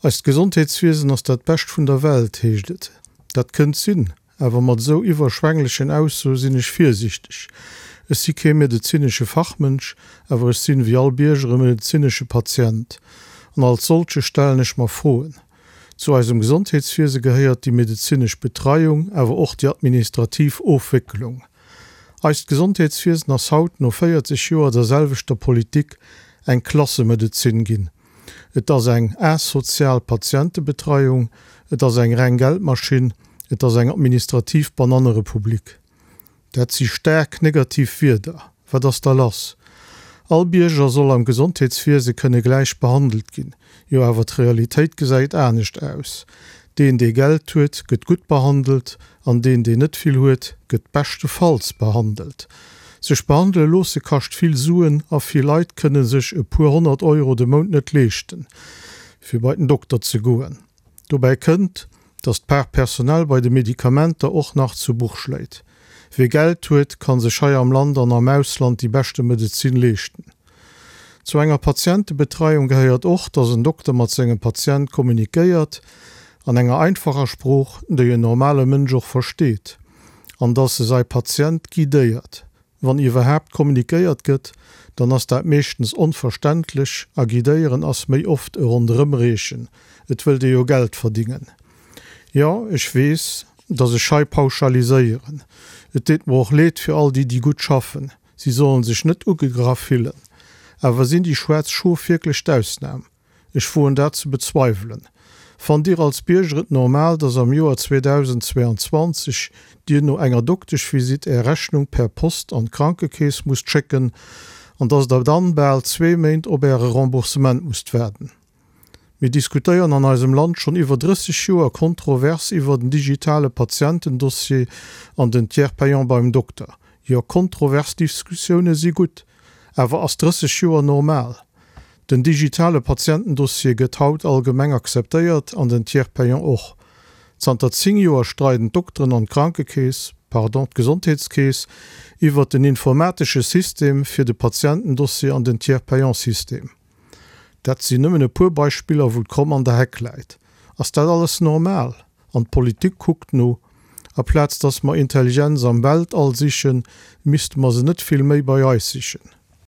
Eist Gesondheetswiesen ass dat bescht vun der Welt, heescht et. Dat kënnt sinn, awer mat esou iwwerschwänglechen Aussoe sinn ech virsiichteg. Ech si kee medezinesche Fachmënsch, awer ech sinn, wéi all Bierger, e medezinesche Patient. An als solche stellen ech mer Froen. Zu eisem Gesondheetswiese gehéiert déi medezinesch Betreiung, awer och déi administrativ Ofwécklung. Eist Gesondheetswiesen ass haut, no 40 Joer der selwechter Politik, eng Klassemedezin ginn. Et ass eng asozial Patientebetreiung, et ass eng reng Geldmaschinn, et ass eng administrativ Banannerepublik. Dat si staark negativ Wierder. Wat ass da lass? All Bierger soll am Gesondheetswiese kënne gläich behandelt ginn. Jo, awer d'Realitéit gesäit anescht aus. Deen, dee Geld huet, gëtt gutt behandelt, an deen, deen net vill huet, gëtt beschtefalls behandelt. Sech behandele loosse kascht vill Suen a vill Leit kënne sech e puer 100 Euro de Mount net leeschten, fir bei den Dokter ze goen. Dobäi kënnt, datt d'Part personnelle bei de Medikamenter och nach zu Buch schléit. Wie Geld huet, kann sech hei am Land an am Ausland déi beschte Medezin leeschten. Zu enger Patientebetreiung gehéiert och, dass en Dokter mat sengem Patient kommunikéiert, an enger einfacher Sprooch, déi en normale Mënsch och versteet, an dass e sai Patient guidéiert. Wann iwwerhaapt kommunikéiert gëtt, dann ass dat meeschtens onverständlech a guidéieren ass méi oft e Ronderëmreechen, et wëllt ee jo Geld verdingen. Jo, ech weess, dass ech hei pauschaliséieren. Et deet mer och leed fir all déi, déi gutt schaffen. Si sollen sech net ugegraff fillen. Awer sinn déi schwaarz Schof wierklech d'Ausnam? Ech woen dat ze bezweiwelen. Fannt Dir als Bierger et normal, dass am Joer 2022 Dir no enger Dokteschvisitt Är Rechnung per Post an d'Krankekeess musst schécken an dass Der dann bal zwee Méint op Äre Remboursement musst waarden? Mir diskutéieren an eisem Land schonn iwwer 30 Joer kontrovers iwwer den digitale Patientendossier an den Tiers payant beim Dokter. Jo, kontrovers Diskussioune si gutt. Awer ass 30 Joer normal? Den digitale Patientendossier gëtt haut allgemeng akzeptéiert an den Tiers payant och. Zanter 10 Joer streiden d'Dokteren an d'Krankekeess, pardon, d'Gesondheetskeess iwwer den informatesche System fir de Patientendossier an den Tiers payant System. Dat sinn nëmmen e puer Beispiller, wou d'Kromm an der Heck läit. Ass dat alles normal? An d'Politik kuckt no. Aplaz dass mer Intelligenz am Weltall sichen, misste mer se net vill méi bei eis sichen.